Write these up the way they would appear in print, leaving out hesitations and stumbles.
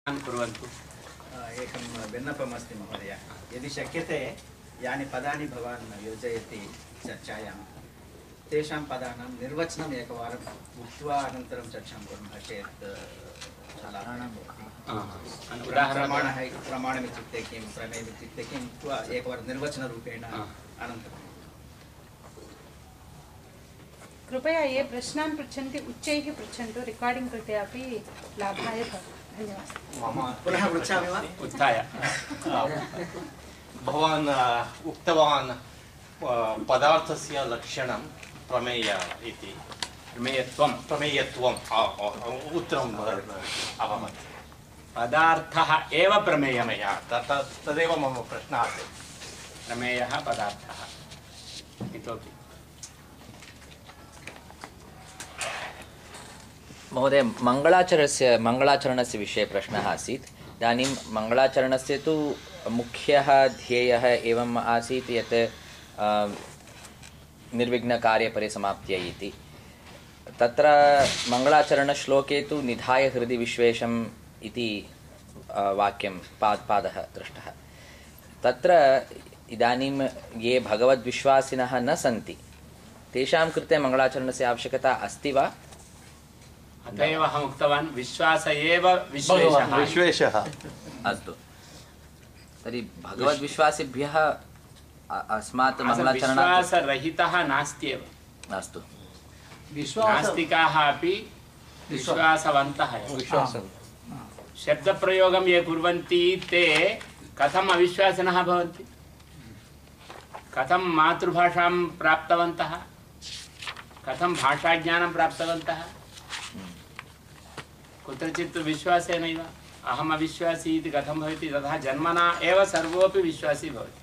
कुर्वन्तु। एकं विन्नपमस्ति महोदय, यदि शक्यते यानि पदानि भवान् योजयति चर्चायां तेषां पदानां निर्वचनम् एकवारम् उक्त्वा अनन्तरं चर्चां कुर्मः चेत् प्रमाणमित्युक्ते किं, प्रमेयमित्युक्ते किम् उक्त्वा एकवारं निर्वचनरूपेण अनन्तरं कृपया ये प्रश्नान् पृच्छन्ति उच्चैः पृच्छन्तु, रेकार्डिङ्ग् कृते अपि लाभाय भवति। धन्यवादः। पुनः पृच्छामि वा? उत्थाय भवान् उक्तवान् पदार्थस्य लक्षणं प्रमेय इति। प्रमेयत्वम् उत्तरम् अभवत्। पदार्थः एव प्रमेयः, तदेव मम प्रश्नः आसीत्। प्रमेयः पदार्थः इतोपि महोदय, मङ्गलाचरणस्य विषये प्रश्नः आसीत्। इदानीं मङ्गलाचरणस्य तु मुख्यः ध्येयः एवम् आसीत् यत् निर्विघ्नकार्यपरिसमाप्त्यै इति। तत्र मङ्गलाचरणश्लोके तु निधाय हृदि विश्वेशम् इति वाक्यं पादः दृष्टः। तत्र इदानीं ये भगवद्विश्वासिनः न सन्ति तेषां कृते मङ्गलाचरणस्य आवश्यकता अस्ति वा? अत एव अहम् उक्तवान्, विश्वास एव विश्वेशः। अस्तु, तर्हि भगवद्विश्वासिभ्यः अस्मात् मङ्गलाचरणात् विश्वासरहितः नास्त्येव। अस्तु, नास्तिकाः अपि विश्वासवन्तः एव। शब्दप्रयोगं ये कुर्वन्ति ते कथम् अविश्वासिनः भवन्ति? कथं मातृभाषां प्राप्तवन्तः? कथं भाषाज्ञानं प्राप्तवन्तः? कुत्रचित् विश्वासेनैव। अहम् अविश्वासी इति कथं भवति? तथा जन्मना एव सर्वोऽपि विश्वासी भवति।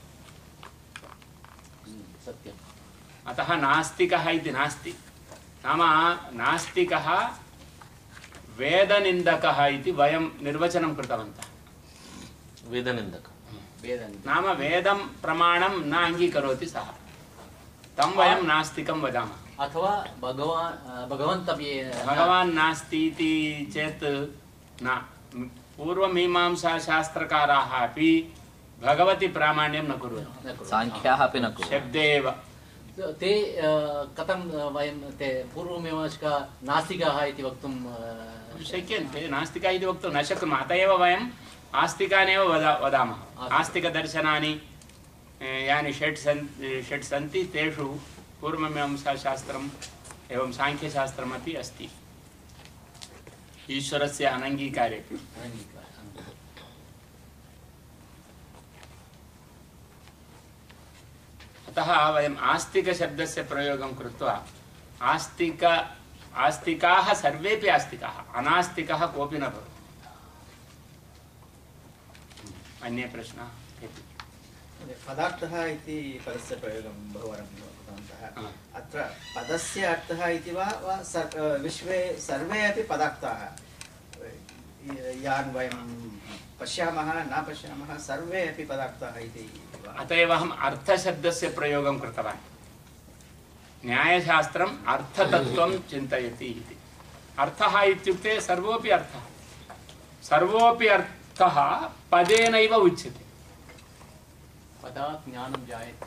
अतः नास्तिकः इति नास्ति। नाम नास्तिकः वेदनिन्दकः इति वयं निर्वचनं कृतवन्तः। वेदनिन्दकः नाम वेदं प्रमाणं न अङ्गीकरोति सः, तं वयं नास्तिकं वदामः। अथवा भगवान् नास्ति इति चेत् न। पूर्वमीमांसाशास्त्रकाराः अपि भगवति प्रामाण्यं न कुर्वन्ति, साङ्ख्याः अपि न कुर्वन्ति। शब्दे एव ते कथं वयं ते पूर्वमीमांसका नास्तिकाः इति वक्तुं शक्यन्ते। नास्तिका इति वक्तुं न शक्नुमः। अत एव वयम् आस्तिकानेव वदामः। आस्तिकदर्शनानि यानि षट् सन्ति तेषु पूर्वमीमांसाशास्त्रम् एवं साङ्ख्यशास्त्रमपि अस्ति, ईश्वरस्य अनङ्गीकारे। अतः वयम् आस्तिकशब्दस्य प्रयोगं कृत्वा आस्तिकाः सर्वेपि आस्तिकाः, अनास्तिकः कोऽपि न भवति। अन्ये प्रश्नाः? पदार्थः इति पदस्य प्रयोगं बहुवारं कृतवन्तः। अत्र पदस्य अर्थः इति वा विश्वे सर्वे अपि पदार्थाः यान् वयं पश्यामः न पश्यामः सर्वे अपि पदार्थाः इति वा? अत एव अहम् अर्थशब्दस्य प्रयोगं कृतवान्। न्यायशास्त्रम् अर्थतत्त्वं चिन्तयति इति। अर्थः इत्युक्ते सर्वोऽपि अर्थः, सर्वोऽपि अर्थः पदेनैव उच्यते। पदात् ज्ञानं जायते।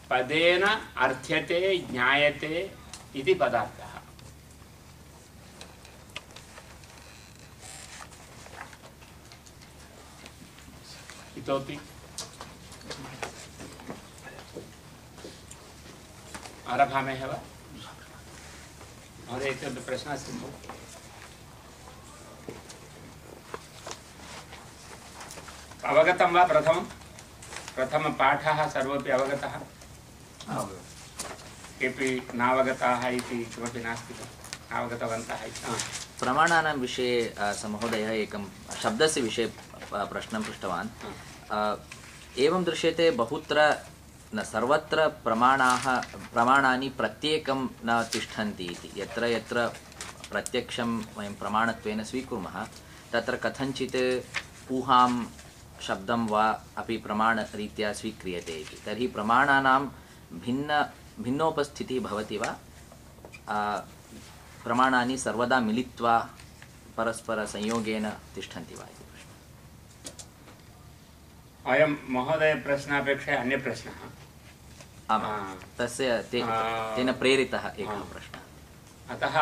पदेन अर्थ्यते ज्ञायते इति पदार्थः। इतोपि आरभामहे वा? महोदय, इतोपि प्रश्नः अस्ति? अवगतं वा? प्रथमपाठः सर्वोऽपि अवगतः? केऽपि नावगताः इति किमपि नास्ति खलु? नावगतवन्तः इति। प्रमाणानां विषये महोदयः एकं शब्दस्य विषये प्रश्नं पृष्टवान्। एवं दृश्यते बहुत्र न सर्वत्र प्रमाणानि प्रत्येकं न तिष्ठन्ति इति। यत्र यत्र प्रत्यक्षं वयं प्रमाणत्वेन स्वीकुर्मः तत्र कथञ्चित् ऊहां शब्दं वा अपि प्रमाणरीत्या स्वीक्रियते इति। तर्हि प्रमाणानां भिन्नोपस्थितिः भवति वा? प्रमाणानि सर्वदा मिलित्वा परस्परसंयोगेन तिष्ठन्ति वा इति प्रश्नः। अयं महोदय प्रश्नापेक्षया अन्यप्रश्नः। आम्, तेन प्रेरितः एकः प्रश्नः। अतः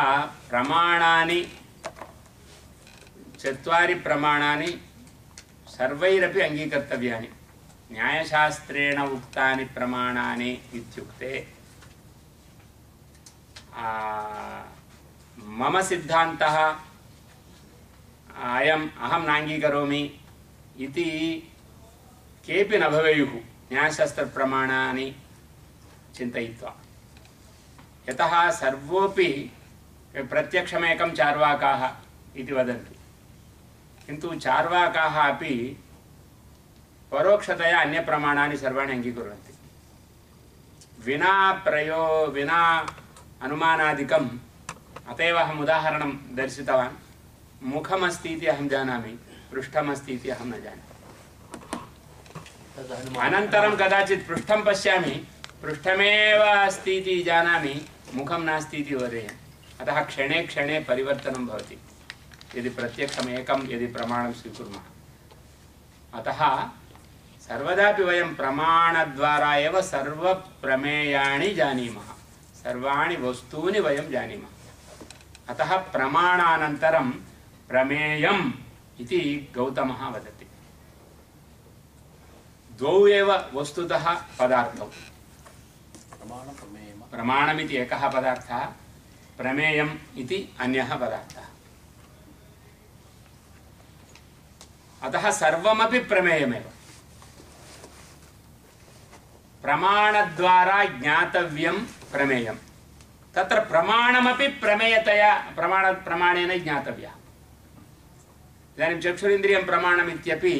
प्रमाणानि 4 प्रमाणानि सर्वैरपि अङ्गीकर्तव्यानि। न्यायशास्त्रेण उक्तानि प्रमाणानि इत्युक्ते मम सिद्धान्तः अहं नाङ्गीकरोमि इति केऽपि न भवेयुः न्यायशास्त्रप्रमाणानि चिन्तयित्वा। यतः सर्वोऽपि प्रत्यक्षमेकं चार्वाकाः इति वदन्ति, किन्तु चार्वाकाः अपि परोक्षतया अन्यप्रमाणानि सर्वाणि अङ्गीकुर्वन्ति। विना अनुमानादिकम्। अत एव अहम् उदाहरणं दर्शितवान्। मुखमस्ति इति अहं जानामि, पृष्ठमस्ति इति अहं न जानामि। अनन्तरं कदाचित् पृष्ठं पश्यामि, पृष्ठमेव अस्ति इति जानामि, मुखं नास्ति इति वदेयम्। अतः क्षणे क्षणे परिवर्तनं भवति यदि प्रत्यक्षम् एकं यदि प्रमाणं स्वीकुर्मः। अतः सर्वदापि वयं प्रमाणद्वारा एव सर्वप्रमेयाणि जानीमः, सर्वाणि वस्तूनि वयं जानीमः। अतः प्रमाणानन्तरं प्रमेयम् इति गौतमः वदति। द्वौ एव वस्तुतः पदार्थौ। प्रमाणमिति एकः पदार्थः, प्रमेयम् इति अन्यः पदार्थः। अतः सर्वमपि प्रमेयमेव। प्रमाणद्वारा ज्ञातव्यं प्रमेयं। तत्र प्रमाणमपि प्रमेयतया प्रमाणेन ज्ञातव्यः। इदानीं चक्षुरिन्द्रियं प्रमाणम् इत्यपि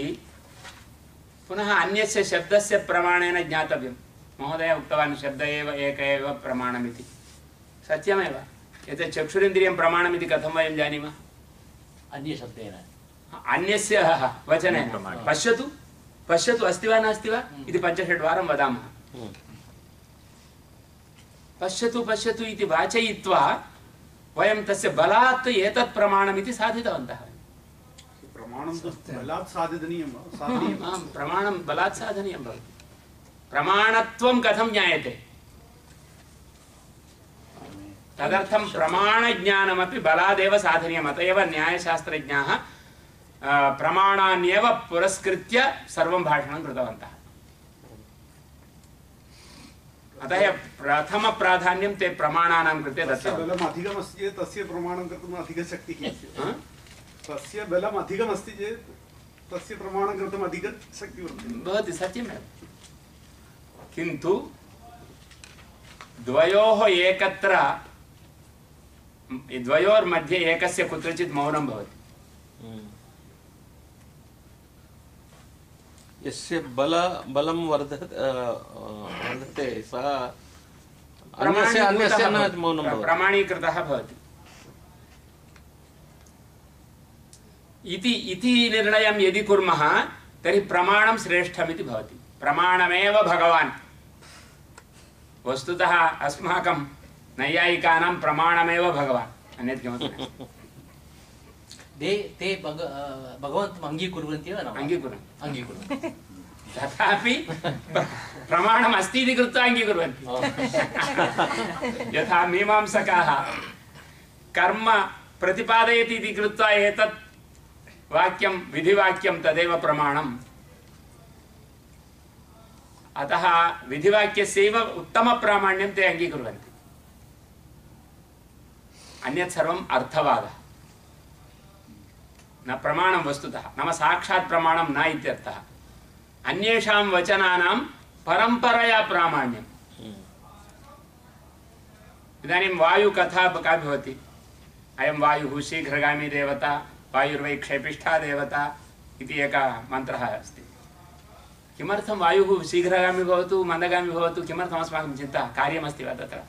पुनः अन्यस्य शब्दस्य प्रमाणेन ज्ञातव्यं। महोदय उक्तवान् शब्द एव एक एव प्रमाणमिति। सत्यमेव। एतत् चक्षुरिन्द्रियं प्रमाणमिति कथं वयं जानीमः? अन्यशब्देन, अन्यस्य वचनेन। पश्यतु पश्यतु अस्ति वा नास्ति वा इति 5-6 वारं वदामः। पश्यतु पश्यतु इति वाचयित्वा वयं तस्य बलात् एतत् प्रमाणमिति साधितवन्तः। प्रमाणं बलात् साधनीयं। प्रमाणं बलात् साधनीयं भवति। प्रमाणत्वं कथं ज्ञायते? तदर्थं प्रमाणज्ञानमपि बलादेव साधनीयम्। अत एव न्यायशास्त्रज्ञाः प्रमाणान्येव पुरस्कृत्य सर्वं भाषणं कृतवन्तः। अतः प्रथमप्राधान्यं ते प्रमाणानां कृते दत्तवन्तः। बलम् अधिकमस्ति चेत् तस्य प्रमाणं कर्तुम् अधिकशक्तिः। तस्य बलम् अधिकमस्ति चेत् तस्य प्रमाणं कर्तुम् अधिकशक्तिः भवति। सत्यमेव। किन्तु द्वयोः एकत्र, द्वयोर्मध्ये एकस्य कुत्रचित् मौनं भवति। यस्य बलं वर्धते सः अन्यस्य न मौनं भवति, प्रमाणीकृतः भवति इति निर्णयं यदि कुर्मः तर्हि प्रमाणं श्रेष्ठमिति भवति। प्रमाणमेव भगवान्। वस्तुतः अस्माकं नैयायिकानां प्रमाणमेव भगवान्, अन्यत् किमपि नास्ति। ते भगवन्तम् अङ्गीकुर्वन्ति वा न? अङ्गीकुर्वन्ति। तथापि प्रमाणम् अस्ति इति कृत्वा अङ्गीकुर्वन्ति। यथा मीमांसकाः कर्म प्रतिपादयति इति कृत्वा एतत् वाक्यं विधिवाक्यं तदेव प्रमाणम्। अतः विधिवाक्यस्यैव उत्तमप्रामाण्यं ते अङ्गीकुर्वन्ति। अन्यत् सर्वम् अर्थवादः, न प्रमाणं वस्तुतः, नाम साक्षात् प्रमाणं न इत्यर्थः। अन्येषां वचनानां परम्परया प्रामाण्यम्। इदानीं वायुकथा का भवति? अयं वायुः शीघ्रगामी देवता, वायुर्वै क्षेपिष्ठा देवता इति एकः मन्त्रः अस्ति। किमर्थं वायुः शीघ्रगामी भवतु मन्दगामी भवतु, किमर्थम् अस्माकं चिन्ता? कार्यमस्ति वा तत्र?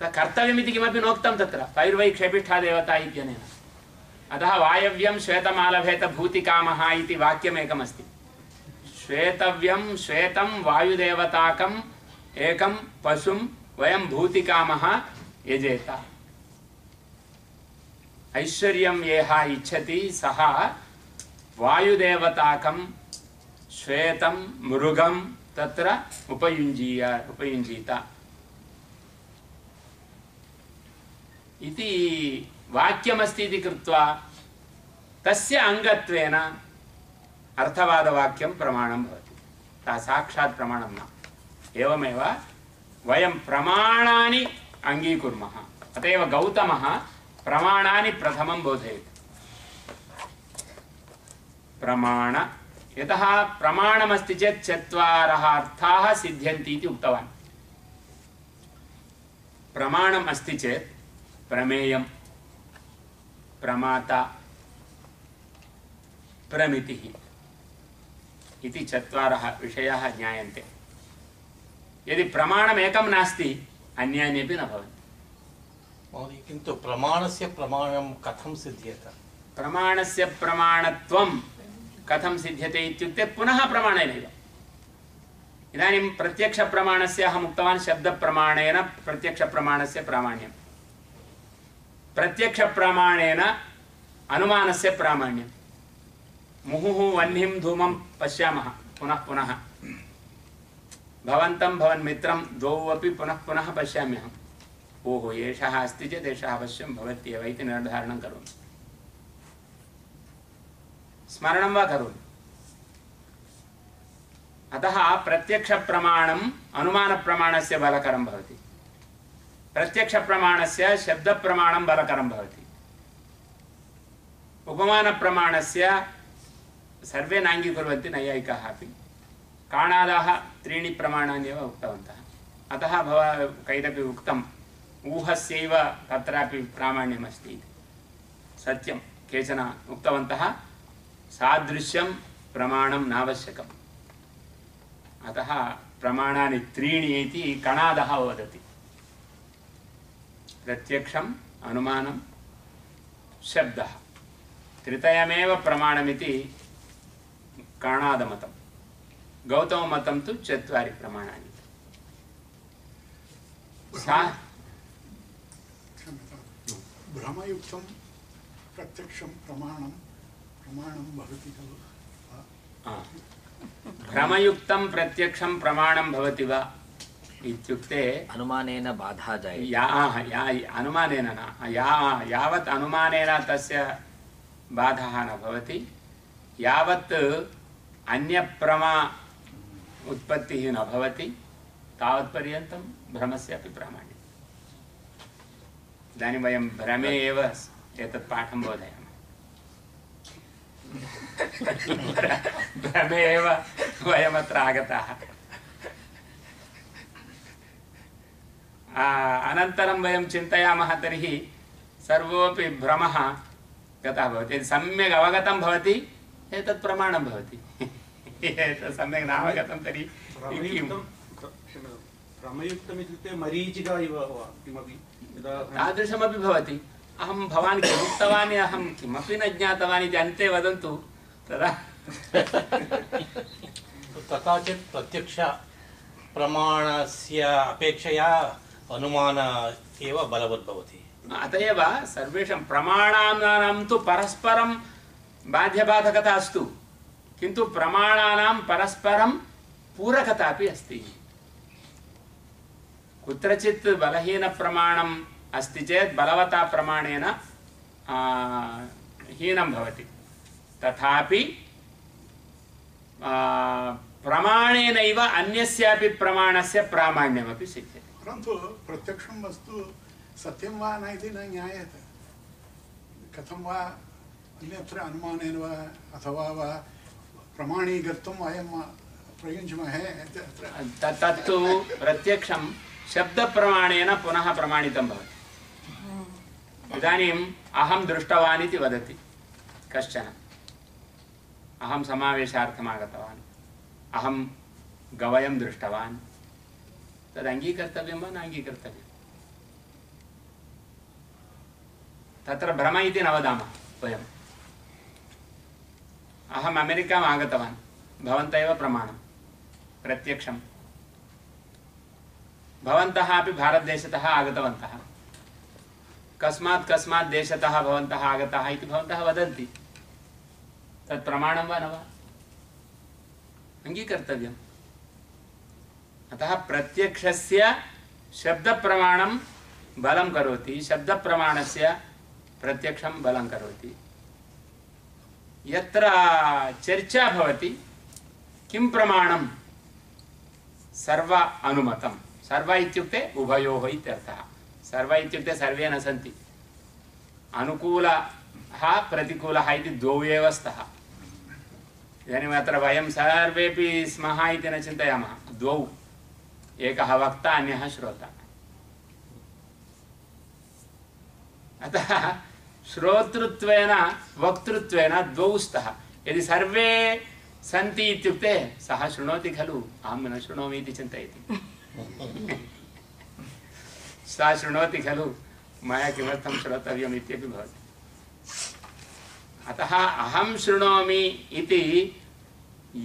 कर्तव्यमिति किमपि नोक्तं तत्र, वायुर्वै क्षेपिष्ठा देवता इत्यनेन। अतः वायव्यं श्वेतमालभेत भूतिकामः इति वाक्यमेकमस्ति। श्वेतव्यं श्वेतं वायुदेवताकम् एकं पशुं वयं भूतिकामः यजेत। ऐश्वर्यं यः इच्छति सः वायुदेवताकं श्वेतं मृगं तत्र उपयुञ्जीत इति वाक्यमस्ति इति कृत्वा तस्य अङ्गत्वेन अर्थवादवाक्यं प्रमाणं भवति। साक्षात् प्रमाणं न। एवमेव वयं प्रमाणानि अङ्गीकुर्मः। अत एव गौतमः प्रमाणानि प्रथमं बोधयति। प्रमाण यतः प्रमाणमस्ति चेत् चत्वारः अर्थाः सिद्ध्यन्ति इति उक्तवान्। प्रमाणम् अस्ति चेत् प्रमेयं, प्रमाता, प्रमितिः इति चत्वारः विषयाः ज्ञायन्ते। यदि प्रमाणमेकं नास्ति अन्यान्यपि न भवन्ति। महोदय, किन्तु प्रमाणस्य प्रमाणं कथं सिद्ध्येत? प्रमाणस्य प्रमाणत्वं कथं सिद्ध्यते इत्युक्ते पुनः प्रमाणेनैव। इदानीं प्रत्यक्षप्रमाणस्य अहम् उक्तवान् शब्दप्रमाणेन प्रत्यक्षप्रमाणस्य प्रामाण्यं, प्रत्यक्षप्रमाणेन अनुमानस्य प्रामाण्यं। मुहुः वह्निं धूमं पश्यामः पुनः पुनः, भवन्तं भवन्मित्रं द्वौ अपि पुनः पुनः पश्याम्यहम्। ओहो एषः अस्ति चेत् एषः अवश्यं भवत्येव इति निर्धारणं करोमि, स्मरणं वा करोमि। अतः प्रत्यक्षप्रमाणम् अनुमानप्रमाणस्य बलकरं भवति, प्रत्यक्षप्रमाणस्य शब्दप्रमाणं बलकरं भवति। उपमानप्रमाणस्य सर्वे नाङ्गीकुर्वन्ति, नैयायिकाः अपि। काणादाः त्रीणि प्रमाणानि एव उक्तवन्तः। अतः कैरपि उक्तम् ऊहस्यैव तत्रापि प्रामाण्यमस्ति इति। सत्यं केचन उक्तवन्तः सादृश्यं प्रमाणं नावश्यकम्, अतः प्रमाणानि त्रीणि इति कणादः वदति। प्रत्यक्षम्, अनुमानं, शब्दः, त्रितयमेव प्रमाणमिति कणादमतं। गौतममतं तु चत्वारि प्रमाणानि। भ्रमयुक्तं प्रत्यक्षं प्रमाणं भवति खलु? भ्रमयुक्तं प्रत्यक्षं प्रमाणं भवति वा इत्युक्ते अनुमानेन बाधा जायते। अनुमानेन न, यावत् अनुमानेन तस्य बाधः न भवति, यावत् अन्यप्रमा उत्पत्तिः न भवति तावत्पर्यन्तं भ्रमस्यापि प्रामाण्यम्। इदानीं वयं भ्रमे एव एतत् पाठं बोधयामः। भ्रमे एव वयमत्र आगताः। अनन्तरं वयं चिन्तयामः तर्हि सर्वोऽपि भ्रमः गतः भवति। यदि सम्यक् अवगतं भवति एतत् प्रमाणं भवति, एतत् सम्यक् नावगतं तर्हि भ्रमयुक्तम् इत्युक्ते मरीचिका इव किमपि तादृशमपि भवति। अहं भवान् किमुक्तवान्, अहं किमपि न ज्ञातवान् इति अन्ते वदन्तु तदा। तथा चेत् प्रत्यक्ष प्रमाणस्य अपेक्षया अनुमान एव बलवत् भवति। अत एव सर्वेषां प्रमाणानां तु परस्परं बाध्यबाधकता अस्तु, किन्तु प्रमाणानां परस्परं पूरकता अपि अस्ति। कुत्रचित् बलहीनप्रमाणम् अस्ति चेत् बलवता प्रमाणेन हीनं भवति, तथापि प्रमाणेनैव अन्यस्यापि प्रमाणस्य प्रामाण्यमपि सिद्ध्यति। परन्तु प्रत्यक्षं वस्तु सत्यं वा न इति न ज्ञायते। कथं वा अन्यत्र अनुमानेन वा अथवा वा प्रमाणीकर्तुं वयं प्रयुञ्ज्महे। तत्तु प्रत्यक्षं शब्दप्रमाणेन पुनः प्रमाणितं भवति। इदानीम् अहं दृष्टवान् इति वदति कश्चन, अहं समावेशार्थम् आगतवान्, अहं गवयं दृष्टवान्, तद् अङ्गीकर्तव्यं वा न अङ्गीकर्तव्यं? तत्र भ्रम इति न वदामः वयम्। अहम् अमेरिकाम् आगतवान्, भवन्तः एव प्रमाणं प्रत्यक्षं। भवन्तः अपि भारतदेशतः आगतवन्तः, कस्मात् कस्मात् देशतः भवन्तः आगताः इति भवन्तः वदन्ति, तत् प्रमाणं वा न वा? अङ्गीकर्तव्यम्। अतः प्रत्यक्षस्य शब्दप्रमाणं बलं करोति, शब्दप्रमाणस्य प्रत्यक्षं बलं करोति। यत्र चर्चा भवति किं प्रमाणं, सर्व अनुमतं। सर्व इत्युक्ते उभयोः इत्यर्थः। सर्व इत्युक्ते सर्वे न सन्ति, अनुकूलः प्रतिकूलः इति द्वौ एव स्तः। इदानीम् अत्र वयं सर्वेपि स्मः इति न चिन्तयामः, द्वौ, एकः वक्ता अन्यः श्रोता। अतः श्रोतृत्वेन वक्तृत्वेन द्वौ स्तः। यदि सर्वे सन्ति इत्युक्ते सः शृणोति खलु, अहं न शृणोमि इति चिन्तयति। सः शृणोति खलु, मया किमर्थं श्रोतव्यम् इत्यपि भवति। अतः अहं शृणोमि इति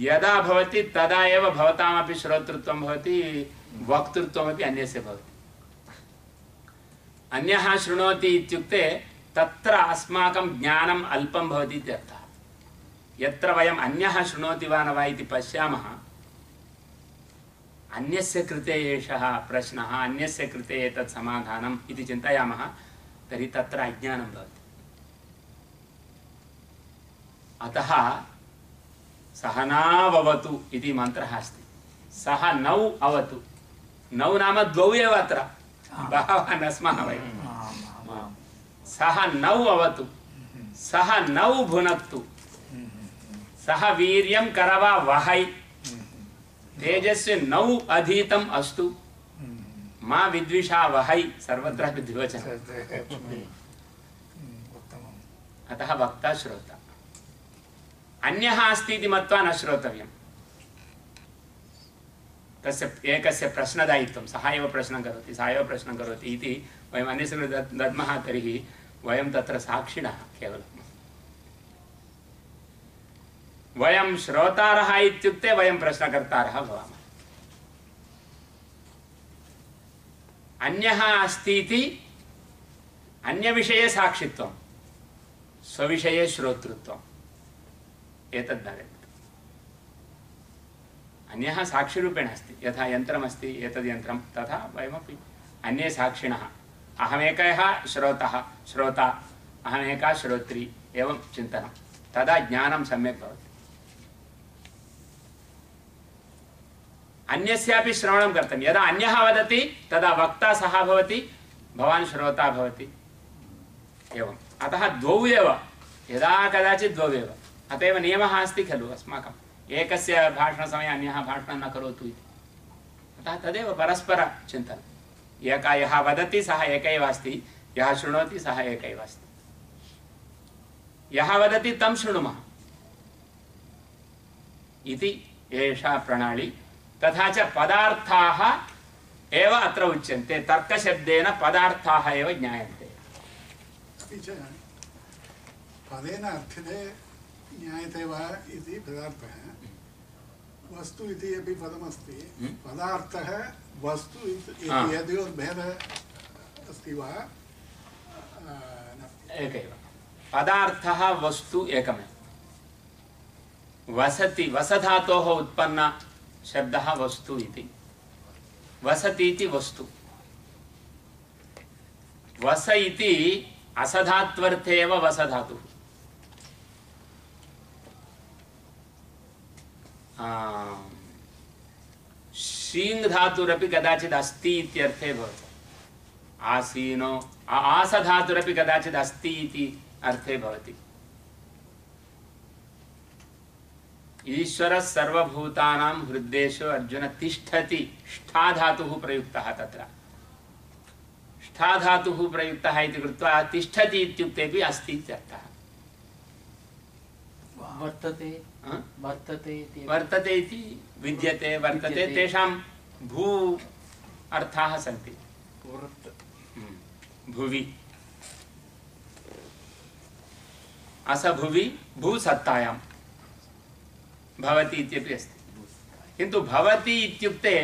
यदा भवति तदा एव भवतामपि श्रोतृत्वं भवति, वक्तृत्वमपि अन्यस्य भवति। अन्यः शृणोति इत्युक्ते तत्र अस्माकं ज्ञानम् अल्पं भवति इत्यर्थः। यत्र वयम् अन्यः शृणोति वा न वा इति पश्यामः, अन्यस्य कृते एषः प्रश्नः, अन्यस्य कृते एतत् समाधानम् इति चिन्तयामः, तर्हि तत्र अज्ञानं भवति। अतः सहनाववतु इति मन्त्रः अस्ति। सः नौ अवतु, नौ नाम द्वौ एव, अत्र बहवः न स्मः वयं। सः नौ अवतु, सः नौ भुनक्तु, सः वीर्यं करवा वहै, तेजस्य नौ अधीतम् अस्तु, मा विद्विषा वहै, सर्वत्र द्विवचनम्। अतः वक्ता श्रोता। अन्यः अस्ति इति मत्वा न श्रोतव्यम्। तस्य एकस्य प्रश्नदायित्वं, सः एव प्रश्नं करोति, सः एव प्रश्नं करोति इति वयम् अन्यस्य कृते दद्मः, तर्हि वयं तत्र साक्षिणः केवलम्। वयं श्रोतारः इत्युक्ते वयं प्रश्नकर्तारः भवामः। अन्यः अस्ति इति अन्यविषये साक्षित्वं, स्वविषये श्रोतृत्वम्, एतद् भवेत्। अन्यः साक्षिरूपेण अस्ति, यथा यन्त्रमस्ति एतद् यन्त्रं, तथा वयमपि अन्ये साक्षिणः। अहमेकः श्रोता, अहमेका श्रोत्री, एवं चिन्तनं, तदा ज्ञानं सम्यक् भवति। अन्यस्यापि श्रवणं कर्तव्यं। यदा अन्यः वदति तदा वक्ता सः भवति, भवान् श्रोता भवति, एवम्। अतः द्वौ एव, यदा कदाचित् द्वौ एव। अत एव नियमः अस्ति खलु अस्माकम्, एकस्य भाषणसमये अन्यः भाषणं न करोतु इति। अतः तदेव परस्परचिन्तनम्। एकः यः वदति सः एक एव अस्ति, यः शृणोति सः एक एव अस्ति। यः वदति तं शृणुमः इति एषा प्रणाली। तथा च पदार्थाः एव अत्र उच्यन्ते, तर्कशब्देन पदार्थाः एव ज्ञायन्ते। अपि च पदेन अर्थिते ज्ञायते वा इति पदार्थः, वस्तु इति अपि पदमस्ति। पदार्थः वस्तु इति यद्योर्भेदः अस्ति वा? एकैव। पदार्थः वस्तु एकमेव। वसति, वसधातोः उत्पन्न शब्दः वस्तु इति। वसति इति वस्तु। वस इति असधात्वर्थे एव वसधातुः। शीङ् धातुरपि कदाचित् अस्ति इत्यर्थे भवति। आसीनो, आसधातुरपि कदाचित् अस्ति इति अर्थे भवति। ईश्वरः सर्वभूतानां हृद्देषु अर्जुन तिष्ठति, ष्ठा धातुः प्रयुक्तः तत्र। ष्ठा धातुः प्रयुक्तः इति कृत्वा तिष्ठति इत्युक्तेपि अस्ति इत्यर्थः। वर्तते वर्तते इति वर्तते इति विद्यते, वर्तते, तेषां भू अर्थाः सन्ति। भुवि, असभुवि, भूसत्तायां भवति इत्यपि अस्ति। किन्तु भवति इत्युक्ते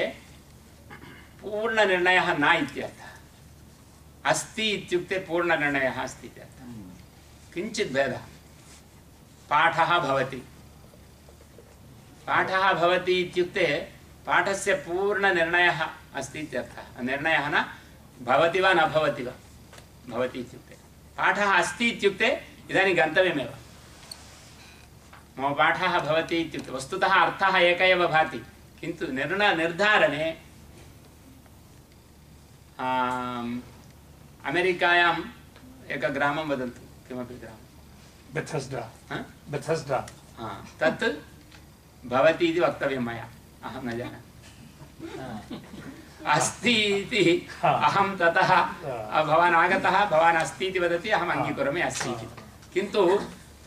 पूर्णनिर्णयः न इत्यर्थः। अस्ति इत्युक्ते पूर्णनिर्णयः अस्ति इति अर्थः। किञ्चित् भेदः। पाठः भवति, पाठः भवति इत्युक्ते पाठस्य पूर्णनिर्णयः अस्ति इत्यर्थः। निर्णयः न भवति वा न भवति वा, भवति इत्युक्ते पाठः अस्ति इत्युक्ते इदानीं गन्तव्यमेव। मम पाठः भवति इत्युक्ते वस्तुतः अर्थः एक एव भाति, किन्तु निर्धारणे अमेरिकायाम् एकं ग्रामं वदन्तु, किमपि ग्रामं बेथेस्डा तत् भवति इति वक्तव्यं मया, अहं न जानामि। अस्ति इति अहं ततः भवान् आगतः, भवान् अस्ति इति वदति, अहम् अङ्गीकरोमि अस्ति इति, किन्तु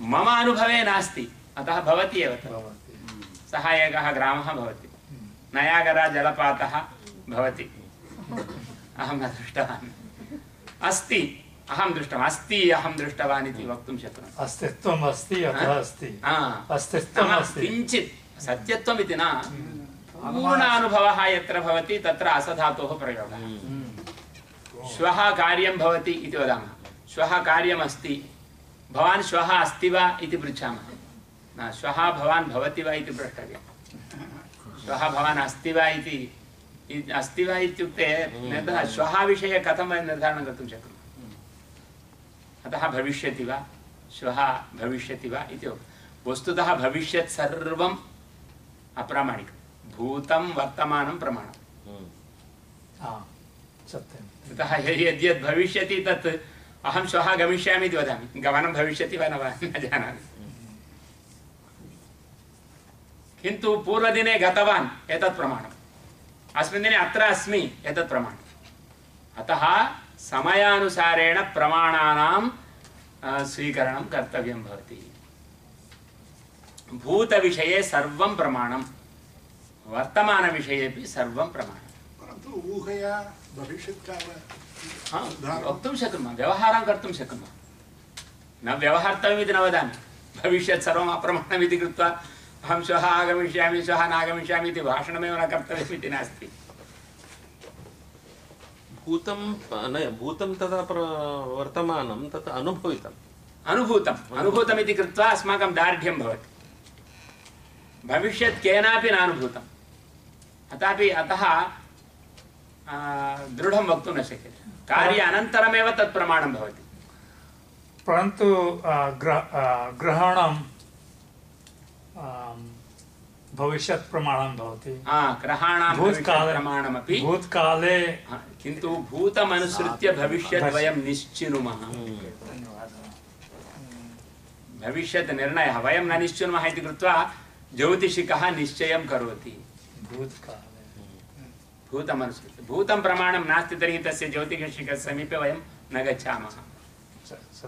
मम अनुभवे नास्ति, अतः भवति एव तत्। सः एकः ग्रामः भवति, नयागरा जलपातः भवति, अहं न दृष्टवान्, अस्ति अहं दृष्टवान्, अस्ति अहं दृष्टवान् इति वक्तुं शक्नोमि। अस्तित्वम् अस्ति अतः अस्ति, अस्तित्वम् अस्ति, किञ्चित् सत्यत्वम् इति न, पूर्णानुभवः यत्र भवति तत्र असधातोः प्रयोगः। श्वः कार्यं भवति इति वदामः, श्वः कार्यमस्ति, भवान् श्वः अस्ति वा इति पृच्छामः, न श्वः भवान् भवति वा इति प्रष्टव्यं। श्वः भवान् अस्ति वा इति, अस्ति वा इत्युक्ते श्वः विषये कथं वयं निर्धारणं कर्तुं शक्नुमः। अतः भविष्यति वा, श्वः भविष्यति वा इति वस्तुतः भविष्यत् सर्वम् अप्रामाणिकं, भूतं वर्तमानं प्रमाणम्। अतः यद्यद् भविष्यति तत् अहं श्वः गमिष्यामि इति वदामि, गमनं भविष्यति वा न वा न जानामि, किन्तु पूर्वदिने गतवान् एतत् प्रमाणम्, अस्मिन् दिने अत्र अस्मि एतत् प्रमाणम्। अतः समयानुसारेण प्रमाणानां स्वीकरणं कर्तव्यं भवति। भूतविषये सर्वं प्रमाणं, वर्तमानविषयेपि सर्वं प्रमाणं। परन्तु ऊहया भविष्यत्काल वक्तुं शक्नुमः, व्यवहारं कर्तुं शक्नुमः। न व्यवहर्तव्यमिति न वदामि, भविष्यत् सर्वम् अप्रमाणमिति कृत्वा अहं श्वः आगमिष्यामि श्वः नागमिष्यामि इति भाषणमेव न कर्तव्यमिति नास्ति। भूतं तथा वर्तमानं तत् अनुभूतमिति कृत्वा अस्माकं दार्ढ्यं भवति। भविष्यत् केनापि नानुभूतम्, अतः दृढं वक्तुं न शक्यते, कार्य अनन्तरमेव तत् प्रमाणं भवति। परन्तु ग्रहणं भविष्यत् प्रमाणं भवति, ग्रहाणां प्रमाणमपि भूतकाले, किन्तु भूतमनुसृत्य भविष्यत् वयं निश्चिनुमः। भविष्यत् निर्णयः वयं न निश्चिनुमः इति कृत्वा ज्योतिषिकः निश्चयं करोति। भूतमनुसृत्य, भूतं प्रमाणं नास्ति तर्हि तस्य ज्योतिषिकस्य समीपे वयं न गच्छामः।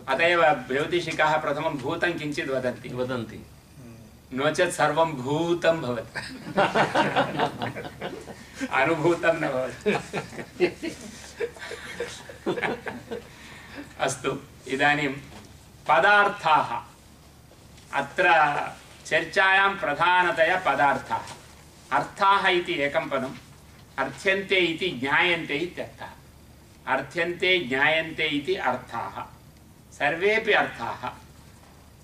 अत एव ज्योतिषिकाः प्रथमं भूतं किञ्चित् वदन्ति, नो चेत् सर्वं भूतं भवति, अनुभूतं न भवति। अस्तु, इदानीं पदार्थाः, अत्र चर्चायां प्रधानतया पदार्थाः। अर्थाः इति एकं पदम्, अर्थ्यन्ते इति ज्ञायन्ते इत्यर्थः। अर्थ्यन्ते ज्ञायन्ते इति अर्थाः, सर्वेपि अर्थाः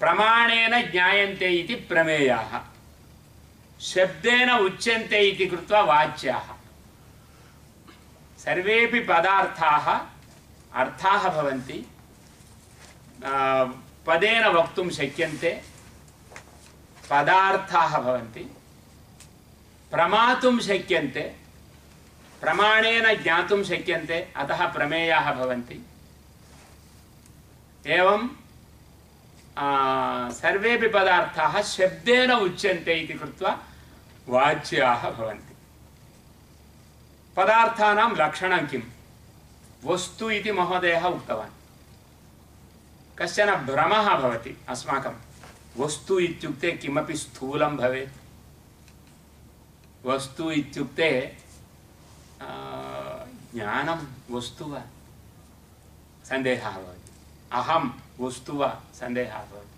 प्रमाणेन ज्ञायन्ते इति प्रमेयाः, शब्देन उच्यन्ते इति कृत्वा वाच्याः। सर्वेपि पदार्थाः अर्थाः भवन्ति, पदेन वक्तुं शक्यन्ते, पदार्थाः भवन्ति, प्रमातुं शक्यन्ते, प्रमाणेन ज्ञातुं शक्यन्ते, अतः प्रमेयाः भवन्ति। एवं सर्वेपि पदार्थाः शब्देन उच्यन्ते इति कृत्वा वाच्याः भवन्ति। पदार्थानां लक्षणं किं? वस्तु इति महोदयः उक्तवान्। कश्चन भ्रमः भवति अस्माकं, वस्तु इत्युक्ते किमपि स्थूलं भवेत्, वस्तु इत्युक्ते ज्ञानं वस्तु वा, सन्देहः भवति। अहं वस्तु वा, सन्देहः भवति।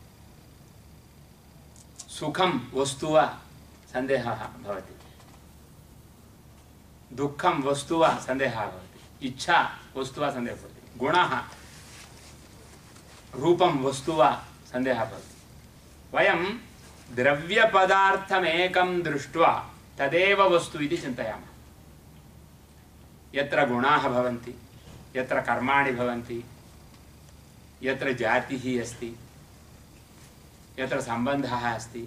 सुखं वस्तु वा, सन्देहः भवति। दुःखं वस्तु वा, सन्देहः भवति। इच्छा वस्तु वा, सन्देहः भवति। गुणः रूपं वस्तु वा सन्देहः भवति। वयं द्रव्यपदार्थमेकं दृष्ट्वा तदेव वस्तु इति चिन्तयामः। यत्र गुणाः भवन्ति, यत्र कर्माणि भवन्ति, यत्र जातिः अस्ति, यत्र सम्बन्धः अस्ति,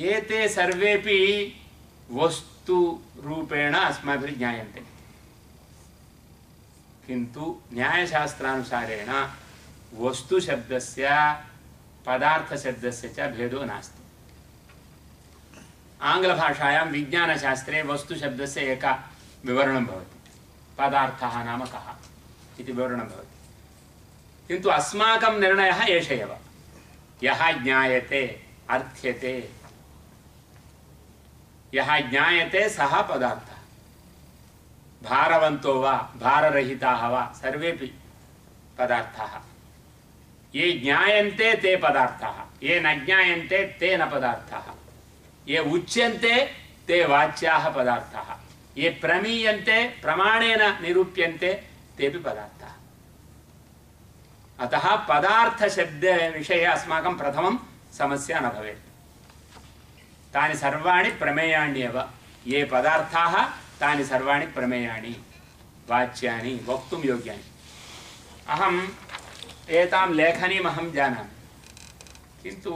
एते सर्वेपि वस्तुरूपेण अस्माभिः ज्ञायन्ते। किन्तु न्यायशास्त्रानुसारेण वस्तुशब्दस्य पदार्थशब्दस्य च भेदो नास्ति। आङ्ग्लभाषायां विज्ञानशास्त्रे वस्तुशब्दस्य एक विवरणं भवति, पदार्थः नाम कः इति विवरणं भवति। किन्तु अस्माकं निर्णयः एष एव, यः ज्ञायते अर्थ्यते, यः ज्ञायते सः पदार्थः। भारवन्तो वा भाररहिताः वा सर्वेपि पदार्थाः। ये ज्ञायन्ते ते पदार्थाः, ये न ज्ञायन्ते ते न पदार्थाः। ये उच्यन्ते ते वाच्याः पदार्थाः, ये प्रमीयन्ते प्रमाणेन निरूप्यन्ते तेपि पदार्थाः। अतः पदार्थशब्दविषये अस्माकं प्रथमं समस्या न भवेत्। तानि सर्वाणि प्रमेयाण्येव। ये पदार्थाः तानि सर्वाणि प्रमेयाणि, वाच्यानि, वक्तुं योग्यानि। अहम् एतां लेखनीम् अहं जानामि, किन्तु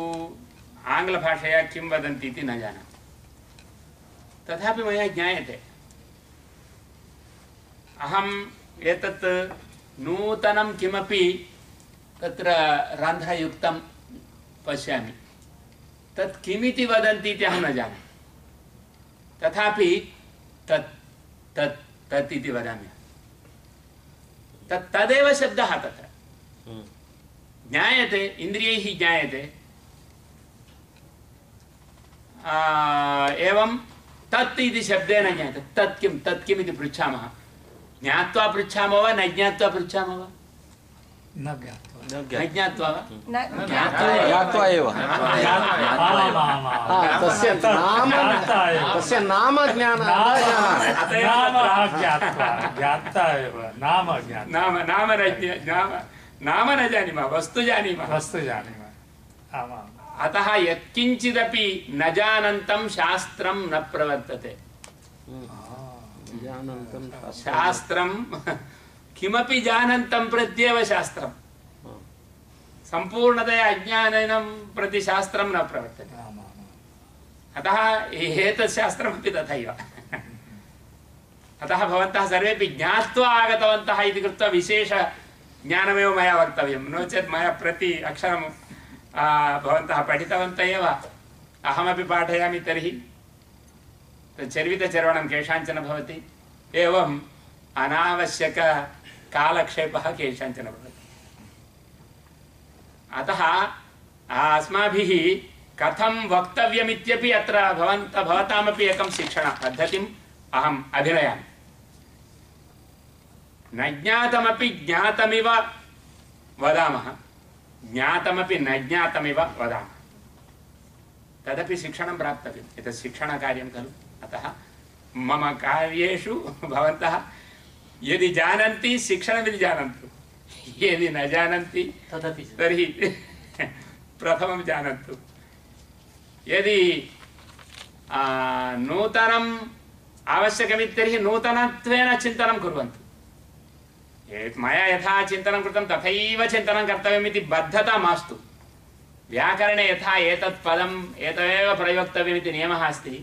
आङ्ग्लभाषया किं वदन्ति इति न जानामि। तथापि मया ज्ञायते। अहम् एतत् नूतनं किमपि तत्र रन्ध्रयुक्तं पश्यामि, तत् किमिति वदन्ति इति अहं न जानामि। तथापि तत् तत् तत् इति वदामि। तदेव शब्दः तत्र ज्ञायते, इन्द्रियैः ज्ञायते। एवं तत् इति शब्देन ज्ञायते। तत् किम् इति पृच्छामः। ज्ञात्वा पृच्छामः वा न ज्ञात्वा पृच्छामः वा? न ज्ञात्वा वा? ज्ञात्वा एव। तस्य नाम नाम न जानीमः, वस्तु जानीमः। अतः यत्किञ्चिदपि न जानन्तं शास्त्रं न प्रवर्तते। शास्त्रं किमपि जानन्तं प्रत्येव शास्त्रं। सम्पूर्णतया अज्ञानेन प्रति शास्त्रं न प्रवर्तते। अतः एतत् शास्त्रमपि तथैव। अतः भवन्तः सर्वेपि ज्ञात्वा आगतवन्तः इति कृत्वा विशेष ज्ञानमेव मया वक्तव्यं, नो चेत् मया प्रति अक्षरं भवन्तः पठितवन्तः एव, अहमपि पाठयामि तर्हि चर्वितचर्वणं केषाञ्चन भवति, एवम् अनावश्यककालक्षेपः केषाञ्चन भवति। अतः अस्माभिः कथं वक्तव्यमित्यपि अत्र भवतामपि एकं शिक्षणपद्धतिम् अहम् अभिनयामि। न ज्ञातमपि ज्ञातमिव वदामः, ज्ञातमपि न ज्ञातमिव वदामः। तदपि शिक्षणं प्राप्तव्यम्। एतत् शिक्षणकार्यं खलु। अतः मम कार्येषु भवन्तः यदि जानन्ति शिक्षणमिति जानन्तु, यदि न जानन्ति तदपि तर्हि प्रथमं जानन्तु। यदि नूतनम् आवश्यकमिति तर्हि नूतनत्वेन चिन्तनं कुर्वन्तु। मया यथा चिन्तनं कृतं तथैव चिन्तनं कर्तव्यमिति बद्धता मास्तु। व्याकरणे यथा एतत् पदम् एतमेव प्रयोक्तव्यमिति नियमः अस्ति,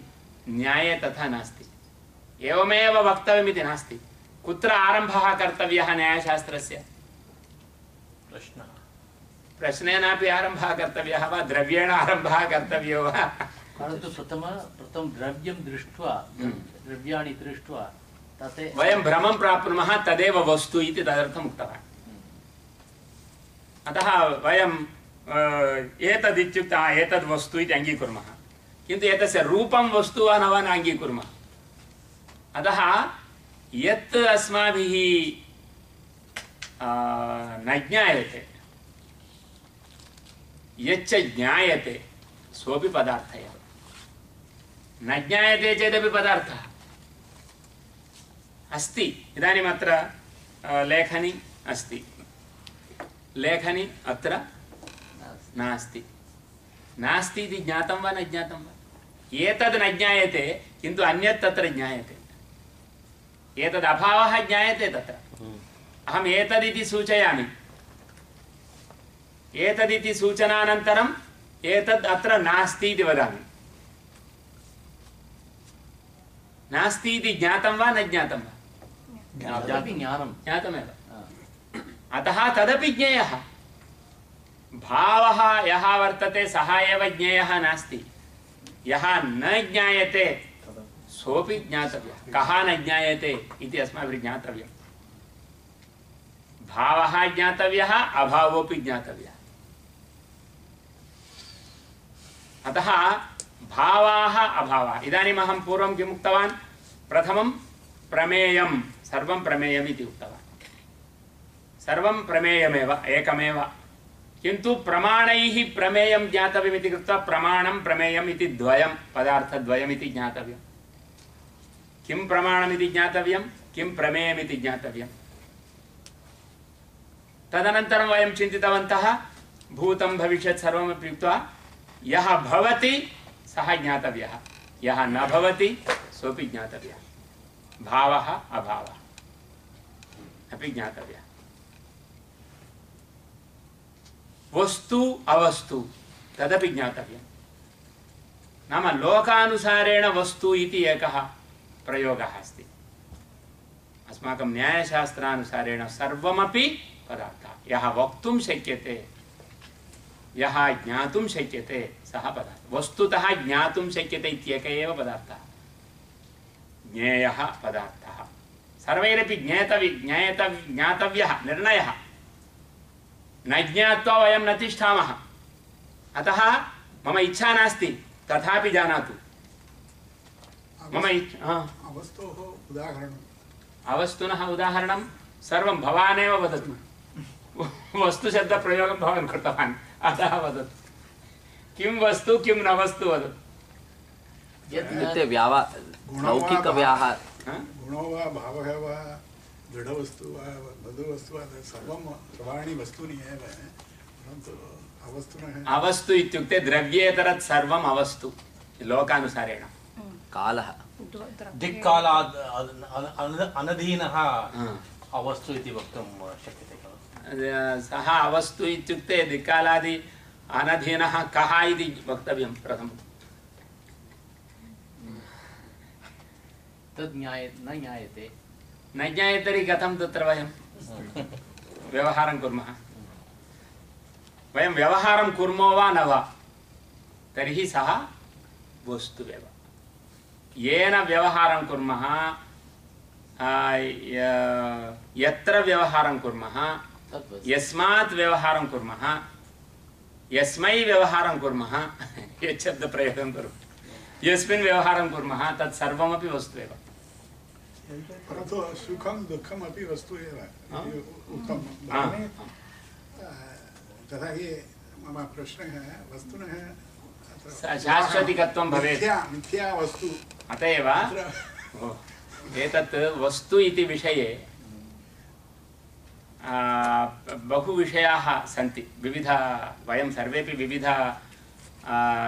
न्याये तथा नास्ति। एवमेव वक्तव्यमिति नास्ति। कुत्र आरम्भः कर्तव्यः न्यायशास्त्रस्य? प्रश्नेनापि आरम्भः कर्तव्यः वा, द्रव्येण आरम्भः कर्तव्यो वा? परन्तु प्रथमं द्रव्यं दृष्ट्वा, द्रव्याणि दृष्ट्वा वयं भ्रमं प्राप्नुमः, तदेव वस्तु इति तदर्थम् उक्तवान्। अतः वयं एतदित्युक्ते एतद् वस्तु इति अङ्गीकुर्मः, किन्तु एतस्य रूपं वस्तु वा न वा न अङ्गीकुर्मः। अतः यत् अस्माभिः न ज्ञायते, यच्च ज्ञायते सोऽपि पदार्थः एव। न ज्ञायते चेदपि पदार्थः अस्ति। इदानीम् अत्र लेखनी अस्ति, लेखनी अत्र नास्ति। नास्ति इति ज्ञातं वा न ज्ञातं वा? एतद् न ज्ञायते किन्तु अन्यत् तत्र ज्ञायते। एतद् अभावः ज्ञायते तत्र। अहम् एतदिति सूचयामि, एतदिति सूचनानन्तरम् एतद् अत्र नास्ति इति वदामि। नास्ति इति ज्ञातं वा न ज्ञातं वा? ज्ञातमेव। अतः तदपि ज्ञेयः। भावः यः वर्तते सः एव ज्ञेयः नास्ति। यः न ज्ञायते सोऽपि ज्ञातव्यः। कः न ज्ञायते इति अस्माभिः ज्ञातव्यम्। भावः ज्ञातव्यः, अभावोऽपि ज्ञातव्यः। अतः भावाः अभावाः। इदानीम् अहं पूर्वं किम् उक्तवान्? प्रथमं प्रमेयं, सर्वं प्रमेयम् इति उक्तवान्। सर्वं प्रमेयमेव, एकमेव। किन्तु प्रमाणैः प्रमेयं ज्ञातव्यमिति कृत्वा प्रमाणं प्रमेयम् इति द्वयं, पदार्थद्वयमिति ज्ञातव्यं। किं प्रमाणमिति ज्ञातव्यं, किं प्रमेयमिति ज्ञातव्यं। तदनन्तरं वयं चिन्तितवन्तः भूतं भविष्यत् सर्वमपि उक्त्वा यः भवति सः ज्ञातव्यः, यः न भवति सोऽपि ज्ञातव्यः। भावः अभावः अपि ज्ञातव्यः। वस्तु अवस्तु तदपि ज्ञातव्यं। नाम लोकानुसारेण वस्तु इति एकः प्रयोगः अस्ति। अस्माकं न्यायशास्त्रानुसारेण सर्वमपि पदार्थः यः वक्तुं शक्यते, यः ज्ञातुं शक्यते सः पदार्थः। वस्तुतः ज्ञातुं शक्यते इत्येकः एव पदार्थः, ज्ञेयः पदार्थः। सर्वैरपि ज्ञातव्यः निर्णयः। न ज्ञात्वा वयं न तिष्ठामः। अतः मम इच्छा नास्ति, तथापि जानातु। मम अवस्तोः उदाहरणम्, अवस्तुनः उदाहरणं सर्वं भवानेव वदतु। वस्तुशब्दप्रयोगं भवान् कृतवान्, अतः वदतु। किं वस्तु किं न वस्तु वदतु। लौकिकव्याहार गुणो वा भावः वा दृढवस्तु वा मधुवस्तु वा सर्वं सर्वाणि वस्तूनि एव, परन्तु अवस्तुनः। अवस्तु इत्युक्ते द्रव्येतरत् सर्वम् अवस्तु लोकानुसारेण। कालः दिक्कालाद् अनधीनः अवस्तु इति वक्तुं शक्यते खलु? सः अवस्तु इत्युक्ते दिक्कालादि अनधीनः कः इति वक्तव्यं प्रथमम्। तद् न ज्ञायते। न ज्ञायते तर्हि कथं तत्र वयं व्यवहारं कुर्मः? वयं व्यवहारं कुर्मो वा न वा, तर्हि सः वस्तुरेव। येन व्यवहारं कुर्मः, यत्र व्यवहारं कुर्मः, यस्मात् व्यवहारं कुर्मः, यस्मै व्यवहारं कुर्मः, यत् शब्दप्रयोगं कुर्मः, यस्मिन् व्यवहारं कुर्मः तत् सर्वमपि वस्तु एव। परन्तु सुखं दुःखम् अपि वस्तु एव उक्तं। तथा हि मम प्रश्नः वस्तुनः शाश्वतिकत्वं भवेत्। मिथ्या वस्तु। अत एव एतत् वस्तु इति विषये बहु विषयाः सन्ति। विविध वयं सर्वेपि विविध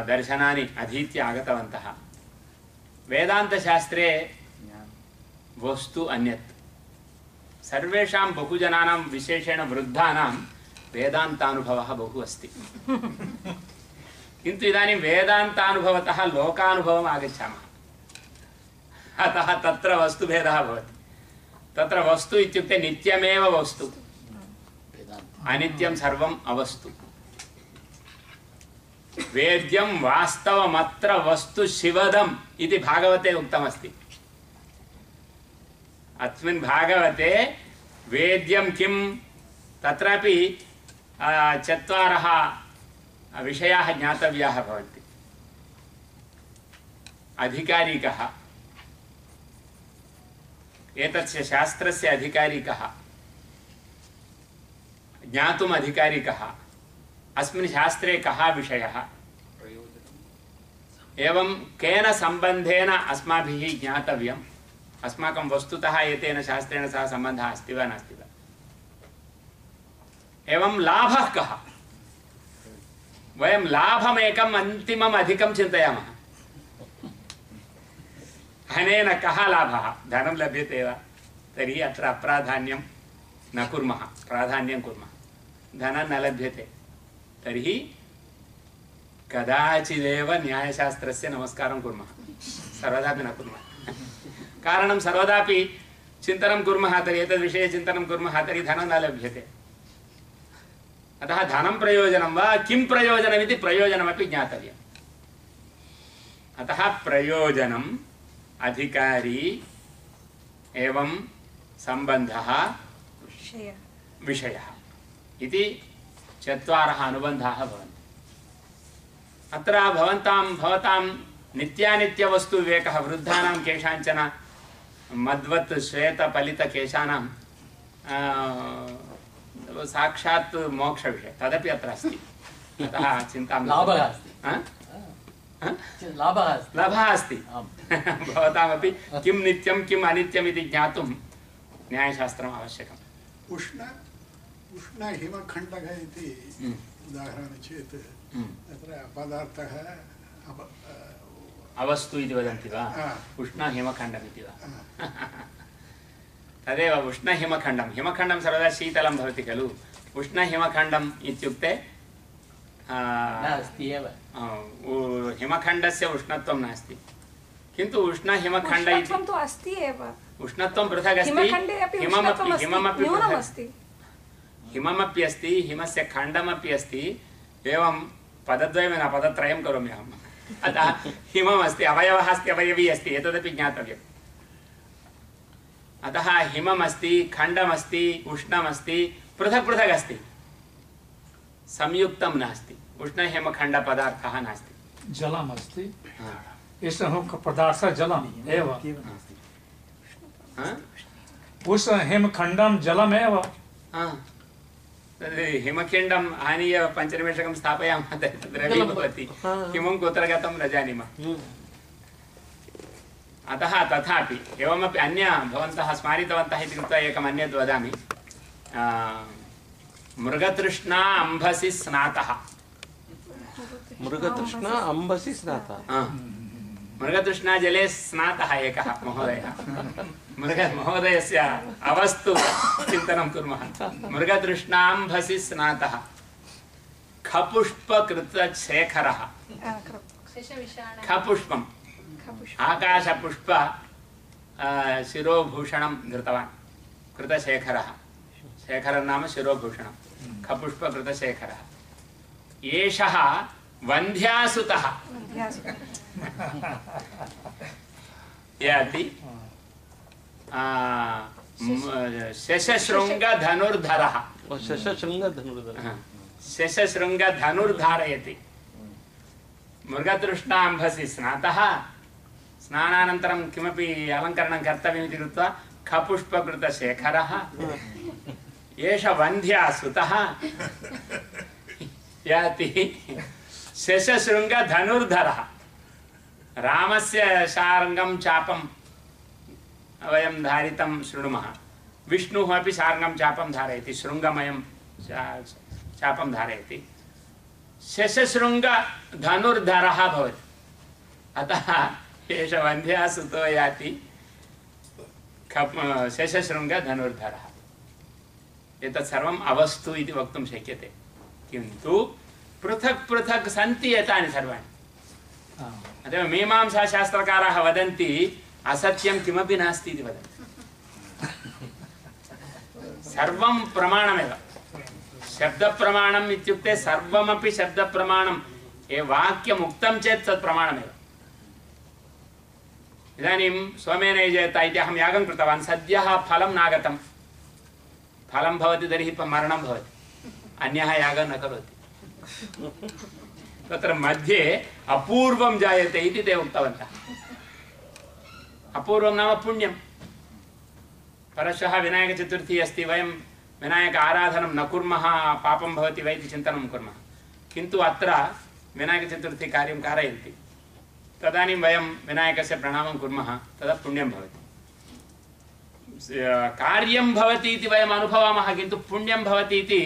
दर्शनानि अधीत्य आगतवन्तः। वेदान्तशास्त्रे वस्तु अन्यत्। सर्वेषां बहुजनानां विशेषेण वृद्धानां वेदान्तानुभवः बहु अस्ति। किन्तु इदानीं वेदान्तानुभवतः लोकानुभवम् आगच्छामः। अतः तत्र वस्तुभेदः भवति। तत्र वस्तु इत्युक्ते नित्यमेव वस्तु, अनित्यं सर्वम् अवस्तु। वेद्यं वास्तवमत्र वस्तु शिवदम् इति भागवते उक्तमस्ति। अस्मिन् भागवते वेद्यं किं, तत्रापि चत्वारः विषयाः ज्ञातव्याः भवन्ति। अधिकारी कः, एतस्य शास्त्रस्य अधिकारी कः, ज्ञातुम् अधिकारी कः, अस्मिन् शास्त्रे कः विषयः, एवं केन सम्बन्धेन अस्माभिः ज्ञातव्यम्, अस्माकं वस्तुतः एतेन शास्त्रेण सह सम्बन्धः अस्ति वा नास्ति वा। एवं लाभः कः? वयं लाभमेकम् अन्तिमम् अधिकं चिन्तयामः। अनेन कः लाभः? धनं लभ्यते वा? तर्हि अत्र अप्राधान्यं न कुर्मः, प्राधान्यं कुर्मः। धनं न लभ्यते तर्हि कदाचिदेव न्यायशास्त्रस्य नमस्कारं कुर्मः, सर्वदापि न कुर्मः। कारणं सर्वदापि चिन्तनं कुर्मः तर्हि एतद्विषये चिन्तनं कुर्मः तर्हि धनं न लभ्यते। अतः धनं प्रयोजनं वा किं प्रयोजनमिति प्रयोजनमपि ज्ञातव्यम्। अतः प्रयोजनम्, अधिकारी एवं सम्बन्धः, विषयः इति चत्वारः अनुबन्धाः भवन्ति। अत्र भवतां नित्यानित्यवस्तुविवेकः वृद्धानां केषाञ्चन मद्वत् श्वेतफलितकेशानां साक्षात् मोक्षविषयः तदपि अत्र अस्ति। अतः चिन्तां लाभः अस्ति, लाभः अस्ति। भवतामपि किं नित्यं किम् अनित्यम् इति ज्ञातुं न्यायशास्त्रम् आवश्यकम्। उष्णहिमखण्डः इति उदाहरणं चेत् तत्र पदार्थः अवस्तु इति वदन्ति वा? उष्णहिमखण्डमिति वा? तदेव उष्णहिमखण्डं। हिमखण्डं सर्वदा शीतलं भवति खलु। उष्णहिमखण्डम् इत्युक्ते हिमखण्डस्य उष्णत्वं नास्ति, किन्तु उष्णहिमखण्ड इति उष्णत्वं पृथक् अस्ति, हिममपि अस्ति, हिमस्य खण्डमपि अस्ति। एवं पदद्वयं न पदत्रयं करोमि अहम्। अतः हिमम् अस्ति, अवयवः अस्ति, अवयवी अस्ति, एतदपि ज्ञातव्यम्। अतः हिमम् अस्ति, खण्डमस्ति, उष्णमस्ति, पृथक् पृथक् अस्ति, संयुक्तं नास्ति। उष्णहिमखण्डपदार्थः नास्ति। जलमस्ति, एषः पदार्थः जलम् एव। उष्णहिमखण्डं जलमेव। हिमखण्डम् आनीय 5 निमेषकं स्थापयामः तर्हि द्रवी भवति। हिमं कुत्र गतं न जानीमः। अतः तथापि एवमपि अन्य भवन्तः स्मारितवन्तः इति कृत्वा एकम् अन्यद् वदामि। मृगतृष्णा अम्भसि स्नातः। मृगतृष्णा अम्भसि स्नातः। मृगतृष्णा जले स्नातः एकः महोदयः। महोदयस्य अवस्तु चिन्तनं कुर्मः। मृगतृष्णाम्भसि स्नातः खपुष्पकृतशेखरः। खपुष्पम् आकाशपुष्प शिरोभूषणं धृतवान् कृतशेखरः। शेखरं नाम शिरोभूषणं। खपुष्पकृतशेखरः एषः वन्ध्यासुतः याति शशशृङ्गधनुर्धरः। शशशृङ्गधनुर्धारयति। मृगतृष्णाम्भसि स्नातः, स्नानानन्तरं किमपि अलङ्करणं कर्तव्यमिति कृत्वा खपुष्पकृतशेखरः एष वन्ध्यासुतः याति शशशृङ्गधनुर्धरः। रामस्य शार्ङ्गं चापं वयं धारितं शृणुमः। विष्णुः अपि शार्ङ्गं चापं धारयति, शृङ्गमयं चापं धारयति। शशशृङ्गधनुर्धरः भवति। अतः एष वन्ध्यासुतो याति शशशृङ्गधनुर्धरः। एतत् सर्वम् अवस्तु इति वक्तुं शक्यते, किन्तु पृथक् पृथक् सन्ति एतानि सर्वाणि। अतः मीमांसाशास्त्रकाराः वदन्ति असत्यं किमपि नास्ति इति वदन्ति। सर्वं प्रमाणमेव। शब्दप्रमाणम् इत्युक्ते सर्वमपि शब्दप्रमाणं। ये वाक्यम् उक्तं चेत् तत् प्रमाणमेव। इदानीं सोमेन यजेत इति अहं यागं कृतवान्, सद्यः फलं नागतं। फलं भवति तर्हि मरणं भवति, अन्यः यागं न करोति। तत्र मध्ये अपूर्वं जायते इति ते उक्तवन्तः। अपूर्वं नाम पुण्यं। परश्वः विनायकचतुर्थी अस्ति, वयं विनायक आराधनं न कुर्मः, पापं भवति वा इति चिन्तनं कुर्मः। किन्तु अत्र विनायकचतुर्थी कार्यं कारयन्ति, तदानीं वयं विनायकस्य प्रणामं कुर्मः, तदा पुण्यं भवति। कार्यं भवति इति वयम् अनुभवामः, किन्तु पुण्यं भवति इति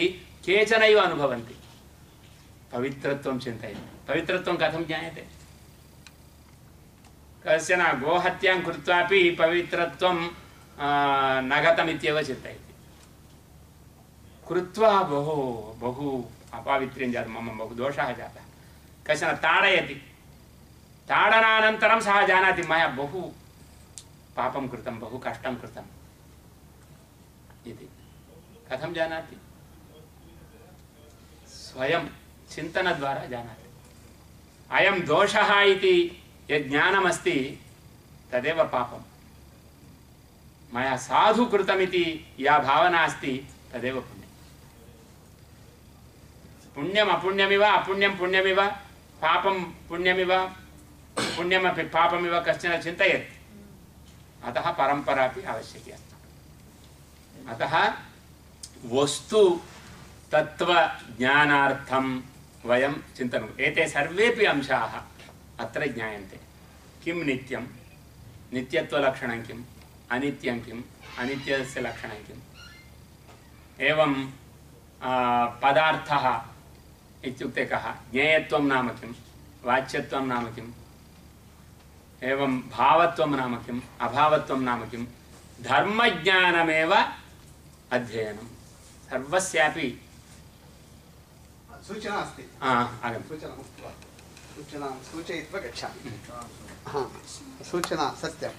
केचनैव अनुभवन्ति पवित्रत्वं चिन्तयन्ति पवित्रत्वं कथं ज्ञायते कश्चन गोहत्यां कृत्वापि पवित्रत्वं न गतमित्येव चिन्तयति कृत्वा बहु बहु अपावित्र्यं जातं मम बहु दोषः जातः कश्चन ताडयति ताडनानन्तरं सः जानाति मया बहु पापं कृतं बहु कष्टं कृतम् इति कथं जानाति स्वयं चिन्तनद्वारा जानाति अयं दोषः इति यद् ज्ञानमस्ति तदेव पापं मया साधु कृतमिति या भावना अस्ति तदेव पुण्यं पुण्यम् अपुण्यमिव अपुण्यं पुण्यमिव पापं पुण्यमिव पुण्यमपि पापमिव कश्चन चिन्तयति अतः परम्परा अपि आवश्यकी अस्ति अतः वस्तु तत्त्वज्ञानार्थं वयं चिन्तनं एते सर्वेपि अंशाः अत्र ज्ञायन्ते किं नित्यं नित्यत्वलक्षणं किम् अनित्यं किम् अनित्यस्य लक्षणं किम् एवं पदार्थः इत्युक्ते कः ज्ञेयत्वं नाम किं वाच्यत्वं नाम किम् एवं भावत्वं नाम किम् अभावत्वं नाम किं धर्मज्ञानमेव अध्ययनं सर्वस्यापि सूचना अस्ति सूचनां सूचयित्वा गच्छामि सूचना सत्यं